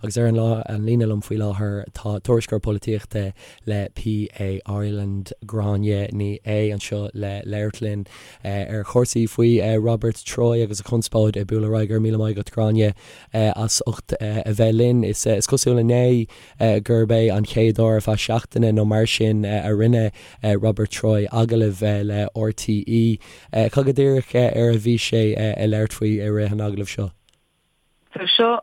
Agus ar an an líne liom faoi láthair tá tuairisceoir polaitíochta le PA Ireland, Gráinne Ní Aodha, anseo le labhairt linn ar chúrsaí faoi Robert Troy agus a chonspóid ag bualadh ar aghaidh. Go raibh míle maith agat, Gráinne, as ucht a bheith linn. Is cosúil inné gurb é an chéad uair ar feadh seachtaine nó mar sin a rinne Robert Troy agallamh le RTÉ. Cad go díreach ar a bhí sé ag labhairt faoi i rith an agallaimh seo? So seo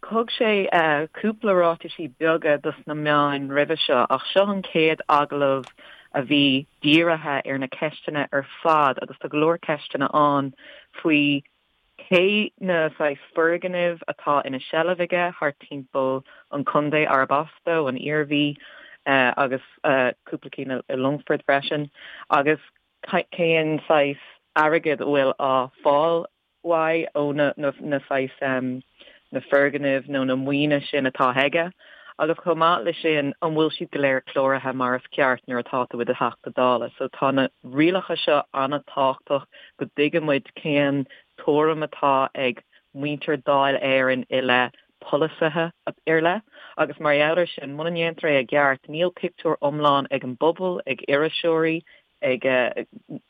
Thug sé cúpla ráitisí beaga dos na meáin roimhe seo ach seo an chéad agallamh a bhí dírithe ar na ceisteanna ar fad agus tá go leor ceisteanna ann faoi cé na saghas foirgnimh atá ina sheilbh aige thart timpeall an chontae arb as dó, an Iarmhí, agus cúpla cinn i Longfort freisin, agus cén saghas airgead a bhfuil á fáil uaidh ó na na saghas na foirgnimh nó na maoine sin atá aige agus chomh maith le sin an bhfuil siad go léir cláraithe mar is ceart nuair atá tú i do Theachta Dála. So tá na rialacha seo an-tábhachtach go dtuigeann muid cén tuairim atá ag muintir Dáil Éireann i leith polasaithe ar leith agus mar gheall ar sin muna ndéantar é i gceart níl pictiúr iomlán ag an bpobal, ag iriseoirí, ag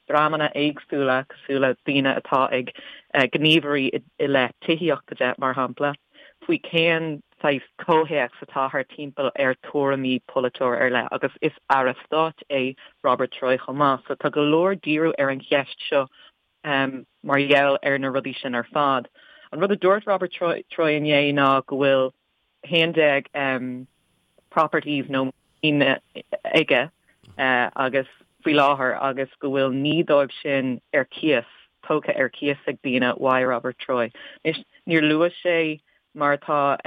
dreamanna éagsúla cosúil le daoine atá ag gníomhairí i leith tithíochta de, mar shampla, faoi cén saghas comhthéacs atá thart timpeall ar tuairimí polaiteoir ar leith agus is Aire Stáit é Robert Troy chomh maith so tá go leor díriú ar an cheist seo mar gheall ar na rudaí sin ar fad. An rud a dúirt Robert Troy inné ná go bhfuil 11 properties nó maoin aige agus faoi láthair agus go bhfuil 9 dóibh sin ar cíos, tógtha ar cíos ag daoine uaidh Robert Troy. Anois, níor luaigh sé, mar atá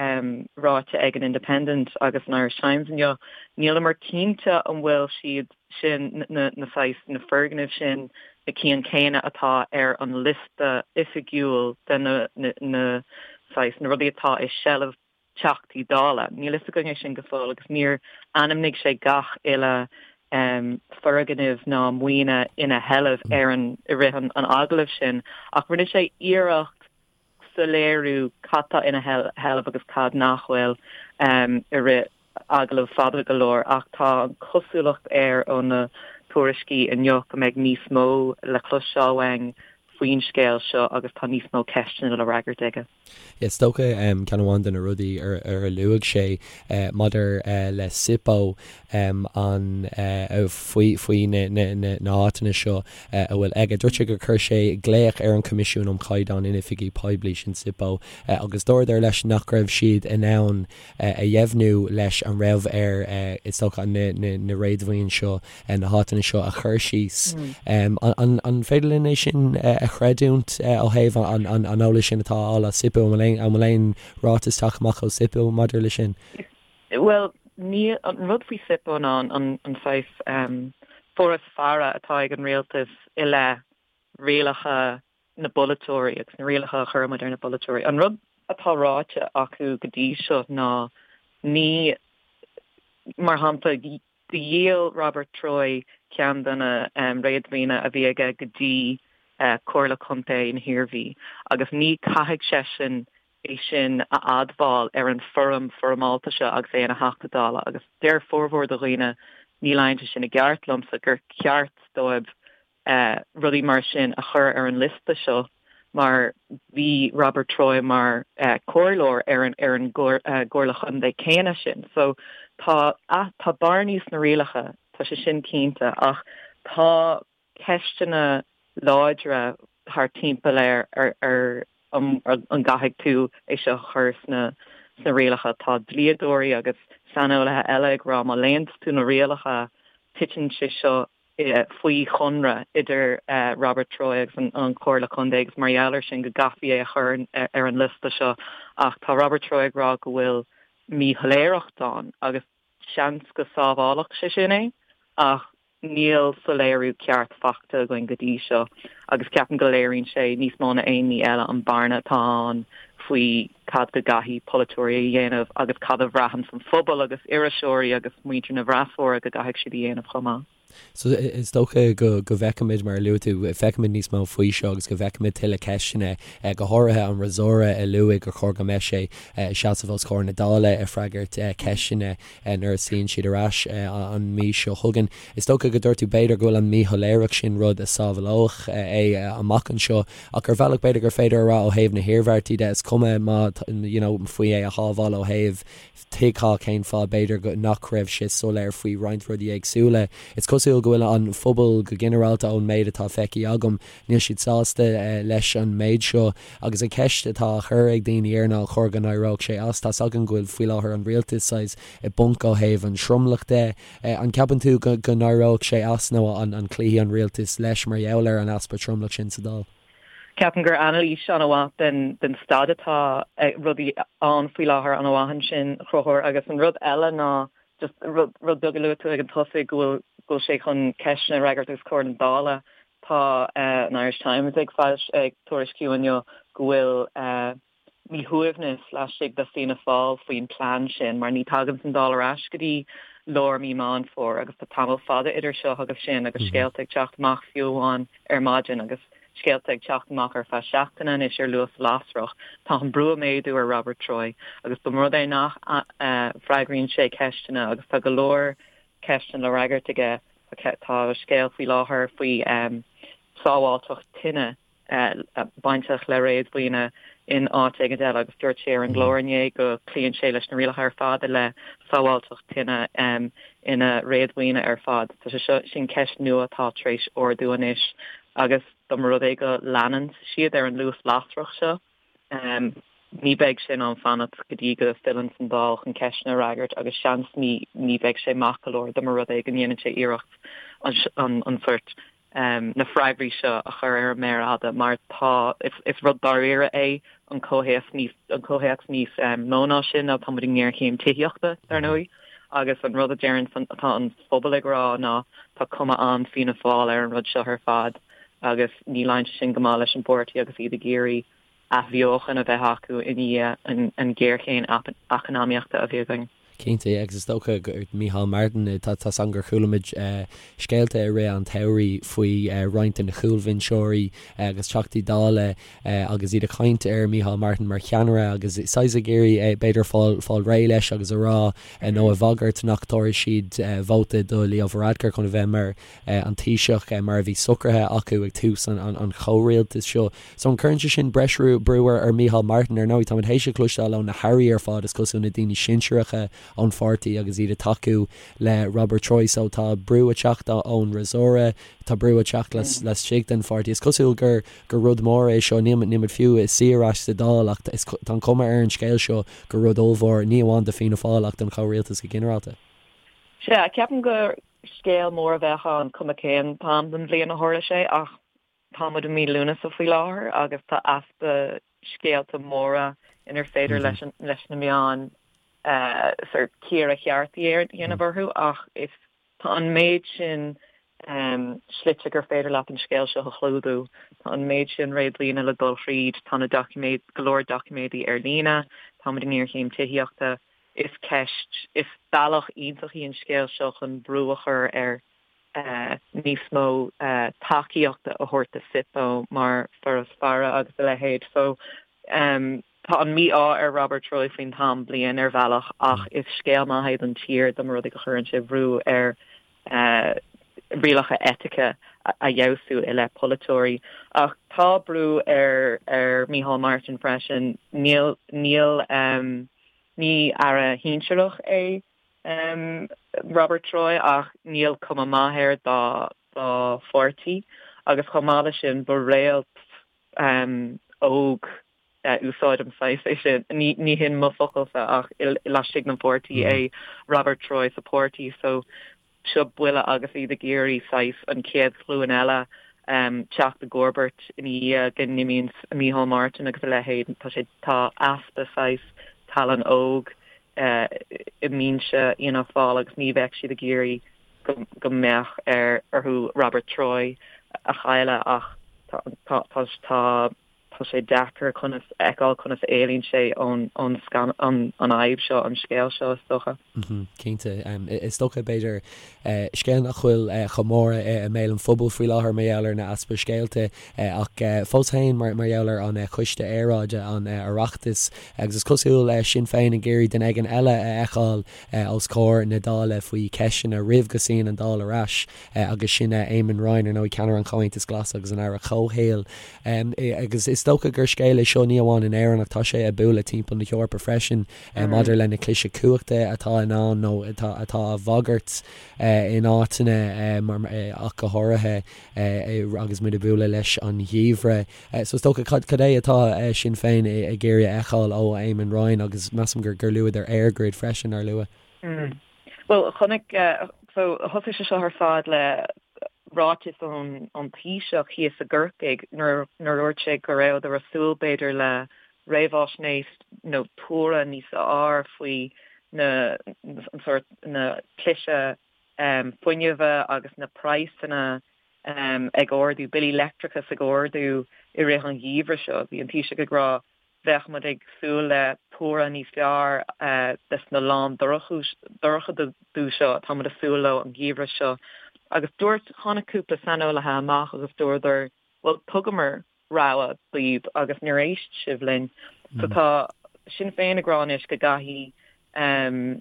ráite ag an Independent agus an Irish Times inniu, níleamar cinnte an bhfuil siad sin, na saghas, na foirgnimh sin, na cinn céanna atá ar an liosta oifigiúil de na, na saghas, na rudaí atá i seilbh Teachtaí Dála. Níl fhios againn é sin go fóill agus níor ainmnigh sé gach uile foirgneamh ná maoine ina sheilbh ar an, i rith an agallaimh sin ach rinne sé iarracht soiléiriú cad tá ina sheilbh agus cad nach bhfuil i rith agallamh fada go leor ach tá an chosúlacht air ó na tuairiscí inniu go mbeidh níos mó le cloisteáil uainn faoin scéal seo agus tá níos mó ceisteanna le fhreagairt aige. Is dócha ceann amháin de na rudaí ar a luaigh sé maidir le SIPO an faoi faoi na háiteanna seo a bhfuil aige. Dúirt sé gur chuir sé glaoch ar an Choimisiún um Chaighdeán in Oifigí Poiblí, sin SIPO, agus dúradar leis nach raibh siad in ann a dheimhniú leis an raibh air, is dócha, na réadmhaoin seo, na háiteanna seo a chur síos. An féidir linn é sin a chreidiúint ó thaobh an eolais sin atá á fháil as SIPO? An bhfuil aon ráiteas tagtha amach ó SIPO maidir le sin? Bhuel, níl. An rud faoi SIPO ná an saghas foras faire atá ag an rialtas i leith rialacha na bpolaiteoirí agus na rialacha a chuireann muid ar na polaiteoirí. An rud atá ráite acu go dtí seo ná ní, mar shampla, dhíol Robert Troy ceann de na réadmhaoine a bhí aige go dtí Comhairle Contae na hIarmhí agus ní caithfidh seisean é sin a admháil ar an foirm foirmeálta seo agus é ina Theachta Dála agus deir formhór de dhaoine, ní luíonn sé sin i gceart liomsa, gur ceart dóibh rudaí mar sin a chur ar an liosta seo mar bhí Robert Troy mar chomhairleoir ar an ar an gComhairle Chontae céanna sin. So tá tá bearnaí sna rialacha, tá sé sin cinnte, ach tá ceisteanna láidre thart timpeall ar ar an an gcaithfidh tú é seo a chur sna sna rialacha. Tá dlíodóirí agus saineolaithe eile ag rá má léann tú na rialacha titeann sé seo faoi chonradh idir Robert Troy agus an Chomhairle Contae agus mar gheall air sin go gcaithfí é a chur ar an liosta seo ach tá Robert Troy ag rá go bhfuil míshoiléireacht ann agus seans go sábhálfadh sé sin é ach níl soiléiriú ceart faighte againn go dtí seo agus ceapaim go léiríonn sé níos mó ná aon ní eile an bearna atá ann faoi cad go gcaithfidh polaiteoirí a dhéanamh agus cad a bhraitheann an phobal agus iriseoirí agus muintir na bhfreasúra go gcaithfidh siad a dhéanamh chomh maith. So is dócha go bhfeicfimid, mar a luaigh tú, feicfimid níos mó faoi seo agus go bhfeicfimid tuilleadh ceisteanna, go háirithe an fhreasúra a luaigh gur chóir go mbeadh sé ag seasamh os comhair na Dála ag freagairt ceisteanna nuair a suíonn siad ar ais an mhí seo chugainn. Is dócha go dúirt tú b'fhéidir go bhfuil an míshoiléireacht sin rud a sábhálódh é amach anseo ach ar bhealach b'fhéidir gur féidir a rá ó thaobh na hiarmhairtí de, is cuma má you know faoi é a shábháil ó thaobh Tuigfeá cén fáth, b'fhéidir, go nach raibh sé soiléir faoi roinnt rudaí éagsúla. Is cosúil go bhfuil an phobal go ginearálta, ón méid atá feicthe agam, níl siad sásta leis an méid seo. Agus an cheist atá á chur ag daoine air ná an chóir go n-éireodh sé as. Tá's againn go bhfuil faoi láthair an rialtas saghas i bponc ó thaobh an tromlach de. An gceapann tú go n-éireodh sé as nó an cloífidh an rialtas leis mar gheall ar an easpa tromlach sin sa Dáil? Ceapaim gur anailís an-mhaith den staid atá rudaí ann faoi láthair an-mhaith ansin, a Chonchúir, agus an rud eile ná just rud beag a luaigh tú ag an tosaigh go bhfuil go bhfuil sé chun ceisteanna a fhreagairt os comhair na Dála. Tá an Irish Times ag ag tuairisciú inniu go bhfuil míshuaimhneas laistigh de Fianna Fáil faoin plean sin mar ní tagann an Dáil ar ais go dtí lár mí Meán Fómhair agus tá tamall fada idir seo agus sin agus scéalta ag teacht amach fiú amháin ar maidin agus scéalta ag teacht amach ar feadh seachtaine anois ar luas lasrach. Tá an brú ag méadú ar Robert Troy agus dá mba rud é nach bhfreagraíonn sé ceisteanna agus tá go leor ceisteanna le fhreagairt aige tá scéal faoi láthair faoi sábháilteacht tine bainteach le réadmhaoine in áit éigin eile agus dúirt sé ar an gclár inné go gcloíonn sé leis na rialacha ar fad i leith sábháilteacht tine ina réadmhaoine ar fad. Tá sé seo, sin ceist nua atá tar éis ardú anois agus dá mba rud é go leanann siad ar an luas lasrach seo, Ní bheidh sé in ann fanacht go dtí go bhfilleann an Dáil chun ceisteanna a fhreagairt agus seans ní ní bheidh sé maith go leor dá mba rud é go ndéanann sé iarracht an sórt na freagraí seo a chur ar an méar fhada mar tá is rud dáiríre é an comhthéacs níos an comhthéacs níos mó ná sin ná tá muid i ngéarchéim tithíochta dar ndóigh agus an rud a deireann atá an phobal ag rá ná tá cuma an-Fianna Fáil ar an rud seo ar fad agus ní luíonn sé sin go maith leis an bpáirtí agus iad ag iarraidh athbheochan a bheith acu i ndiaidh an ghéarchéim eacnamaíochta a bhí againn. Cinnte, agus is dócha gur Micheál Martin, tá 's agam gur chuala muid scéalta i rith an tsamhraidh faoi roinnt de na cúlbhinseoirí agus Teachtaí Dála agus iad ag caint ar Micheál Martin mar cheannaire agus saghas ag iarraidh b'fhéidir fáil fáil réidh leis agus a rá nó a bhagairt nach dtabharfaidh siad vóta do Leo Varadkar chun a bheith mar an Taoiseach mar a bhí socraithe acu ag tús an chomhrialtais seo. So an gcuireann sé sin breis brú ar Micheál Martin? Ar ndóigh, táimid théis a chloisteáil ó na hairí ar fad, is cosúil, na daoine sinsearacha ón pháirtí agus iad ag tacú le Robert Troy. So tá brú ag teacht ón fhreasúra, tá brú ag teacht laistigh den pháirtí. Is cosúil gur gur rud mór é seo. Níl muid fiú ag suí ar ais sa Dáil ach tá an chuma ar an scéal seo gur rud ollmhór, ní amháin do Fianna Fáil ach don chomhrialtas go ginearálta. Sea, ceapaim gur Scéal mór a bheadh ann, cuma cén t-am den bhliain a tharla sé, ach tá muid i mí Lúnasa faoi láthair agus tá easpa scéalta móra inar féidir leis leis na meáin sort cíoradh ceart a dhéanamh orthu ach is tá an méid sin slite gur féidir leat an scéal seo a chlúdú. Tá an méid sin réadmhaoine le dul thríd, tá na doiciméid, go leor doiciméadaí ar líne, tá muid i ngéarchéim tithíochta. Is ceist, is bealach iontach í an scéal seo chun brú a chur ar níos mó tacaíochta a thabhairt do SIPO mar Foras Faire agus a leithéid. So tá an mí-ádh ar Robert Troy faoin t-am bliain ar bhealach ach is scéal maith é don tír dá mba rud é go chuireann sé brú ar rialacha eitice a fheabhsú i leith polaiteoirí. Ach tá brú ar ar Micheál Martin freisin. Níl níl Ní aire shinsearach é Robert Troy ach níl cuma maith air dá dá pháirtí agus chomh maith leis sin ba réalt óg, úsáidim saghas é sin, ní hin mo focalsa ach laistigh den pháirtí é Robert Troy sa pháirtí so seo buille agus iad ag iarraidh saghas an chéad ghlúin eile teacht i gcomharbacht ina dhiaidh go n-imíonn Micheál Martin agus a leithéid. Tá sé, tá easpa saghas tallann óg i mbinse Fhianna Fáil agus ní bheadh siad ag iarraidh go go mbeadh ar orthu Robert Troy a chailleadh ach tá tá tá tá. Tá sé deacair conas fheiceáil conas a éalaíonn sé ón an an fhadhb seo, an scéal seo, is dócha. Cinnte. Is dócha, b'fhéidir, scéal nach bhfuil chomh mór i mbéal an phobail faoi láthair mar gheall ar na easpa scéalta ach fós féin mar gheall ar an Choiste Aeráide, an Oireachtas agus is cosúil Sinn Féin ag iarraidh duine éigin eile a fheiceáil os comhair na Dála faoi cheisteanna roimh go suíonn an Dáil ar ais agus sin Eamon Ryan, ar ndóigh, ceannaire an Chomhaontais Ghlais agus an Aire Comhshaoil. Agus is dócha gur scéal é seo ní amháin in Éirinn ach tá sé ag bualadh timpeall na hEorpa freisin maidir le na cliseadh cumhachta atá in ann nó atá á bhagairt in áiteanna ach go háirithe agus muid ag bualadh leis an gheimhreadh. So is dócha cad é atá Sinn Féin ag iarraidh a fheiceáil ó Eamon Ryan agus measaim gur luadar EirGrid freisin, nár luadh? Bhuel, chonaic, so thosaigh sé seo ar fad le ráiteas ón ón Taoiseach thíos i gCorcaigh nuair nuair a dúirt sé go rabhadar ag súil b'fhéidir le réamhaisnéis nó tuaradh níos fearr faoi na an sórt na cliseadh fuinnimhe agus na praghsanna ag ardú, billí leictreachais ag ardú i rith an gheimhridh seo. Bhí an Taoiseach ag rá bheadh muid ag súil le tuaradh níos fearr des na lán-dorchadú seo atá muid ag súil leo an geimhreadh seo. Agus dúirt, tháinig cúpla saineolaithe amach agus dúradar, bhuel, thugamar rabhadh daoibh agus níor éist sibh linn. So tá Sinn Féin ag rá anois go gcaithfidh an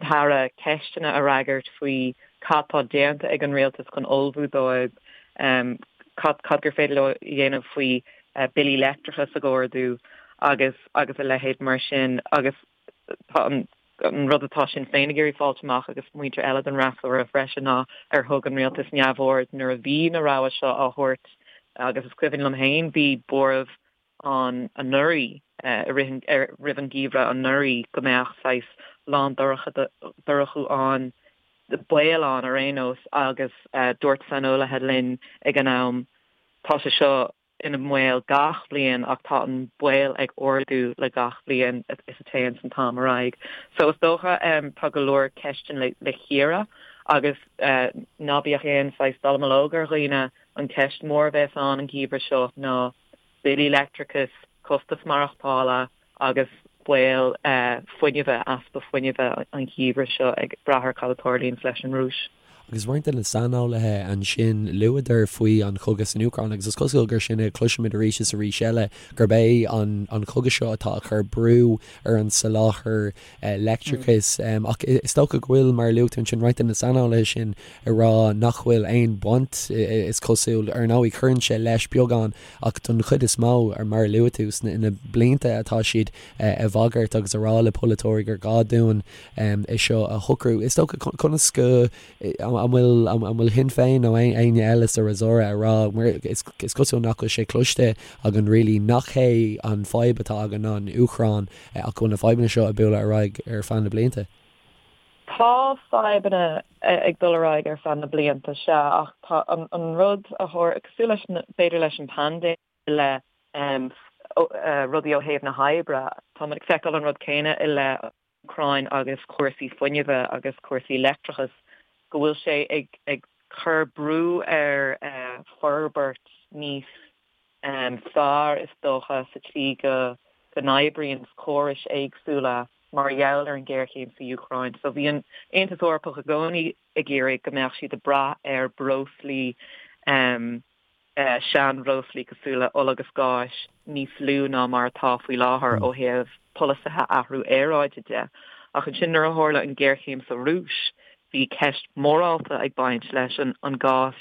tAire ceisteanna a fhreagairt faoi cad tá déanta ag an rialtas chun ullmhú dóibh, cad cad gur féidir leo a dhéanamh faoi billí leictreachais ag ardú agus agus a leithéid mar sin agus tá an an rud atá Sinn Féin ag iarraidh fáilt amach agus muintir eile den fhreasúra freisin ná ar thug an rialtas neamhaird nuair a bhí na rabhaidh seo á thabhairt agus is cuimhin liom féin bhí buaireamh ann anuraidh, i rith an, roimh an gheimhreadh anuraidh go mbeadh saghas lán-dorchadú ann, baol ann ar aon nós agus dúirt saineolaithe linn ag an am, tá sé seo ina mbaol gach bliain ach tá an baol ag ardú le gach bliain is a téanns an t-am ar aghaidh. So is dócha tá go leor ceisteanna le cíoradh agus ná bíodh aon saghas dallamullóg ar dhaoine, an ceist mhór a bheas ann an geimhreadh seo ná billí leictreachais, costas maireachtála agus baol fuinnimhe, easpa fuinnimhe an gheimhreadh seo ag brath ar cad a tarlaíonns leis an Rúis. Agus roinnt de na saineolaithe ansin, luadar faoi an chogadh san Úcráin agus is cosúil gur sin a chloisimid arís is arís eile, gurb é an cogadh seo atá ag cur brú ar an soláthar leictreachais. Ach is dócha go bhfuil, mar a luaigh tú ansin, roinnt de na saineolaithe sin ag rá nach bhfuil aon bhaint, is cosúil. Ar ndóigh, cuireann sé leis beagán, ach don chuid is mó, mar a luaigh tú, sna blianta atá siad ag bagairt agus ag rá le polaiteoirí gur gá dúinn é seo a shocrú. Is dócha, conas go, an bhfuil, an bhfuil Sinn Féin nó éinne eile sa fhreasúra ag rá, mar is cosúil nach bhfuil sé cloiste againn really, nach hé an fadhb atá againn ná an Úcráin ach go bhfuil na fadhbanna seo ag bualadh ar aghaidh ar feadh na blianta. Tá fadhbanna ag dul ar aghaidh ar feadh na blianta, sea, ach tá an rud a tharla, cosúil leis, b'fhéidir leis an bpaindéim, le rudaí ó thaobh na hoibre, tá muid ag feiceáil an rud céanna i leith an Úcráin agus cúrsaí fuinnimhe agus cúrsaí leictreachais, go bhfuil sé ag cur brú ar forbairt níos fearr, is dócha, sa tslí go n-oibríonn córais éagsúla mar gheall ar an ghéarchéim sa Úcráin. So bhí an Aontas Eorpach i gcónaí ag iarraidh go mbeadh siad ag brath ar breoslaí, seanbhreoslaí cosúil le ola agus gáis níos lú ná mar atá faoi láthair ó thaobh polasaithe athrú aeráide de. Ach ansin nuair a tharla an ghéarchéim sa Rúis, bhí ceist mhorálta ag baint leis an gás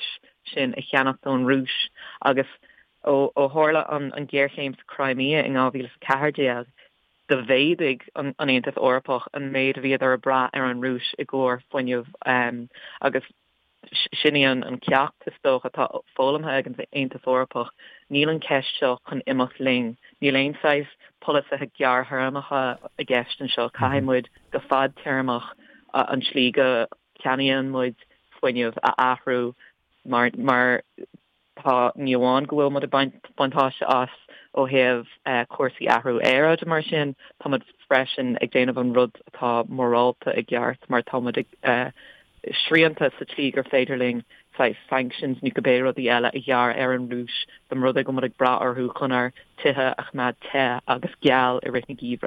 sin a cheannacht ón Rúis agus ó tharla an ghéarchéim sa Crimea in 2014, do mhéadaigh an Aontas Eorpach an méid a bhíodar ag brath ar an Rúis i gcomhair fuinnimh agus sin í an ceacht, is dócha, atá foghlamtha ag an Aontas Eorpach. Níl an cheist seo chun imeacht linn. Níl aon saghas polasaithe gearrthéarmacha i gceist anseo. Caithfidh muid go fadtéarmach an tslí go gceannaíonn muid fuinneamh a athrú mar mar tá ní amháin go bhfuil muid ag baint buntáiste as ó thaobh cúrsaí athrú aeráide mar sin, tá muid freisin ag déanamh an rud atá morálta i gceart mar tá muid ag srianta sa tslí gur féidir linn. saghas sanctions nó cibé rudaí eile a ghearradh ar an Rúis, dá mba rud é go bhfuil muid ag brath orthu chun ár tithe a choimeád te agus geal i rith na geimhridh.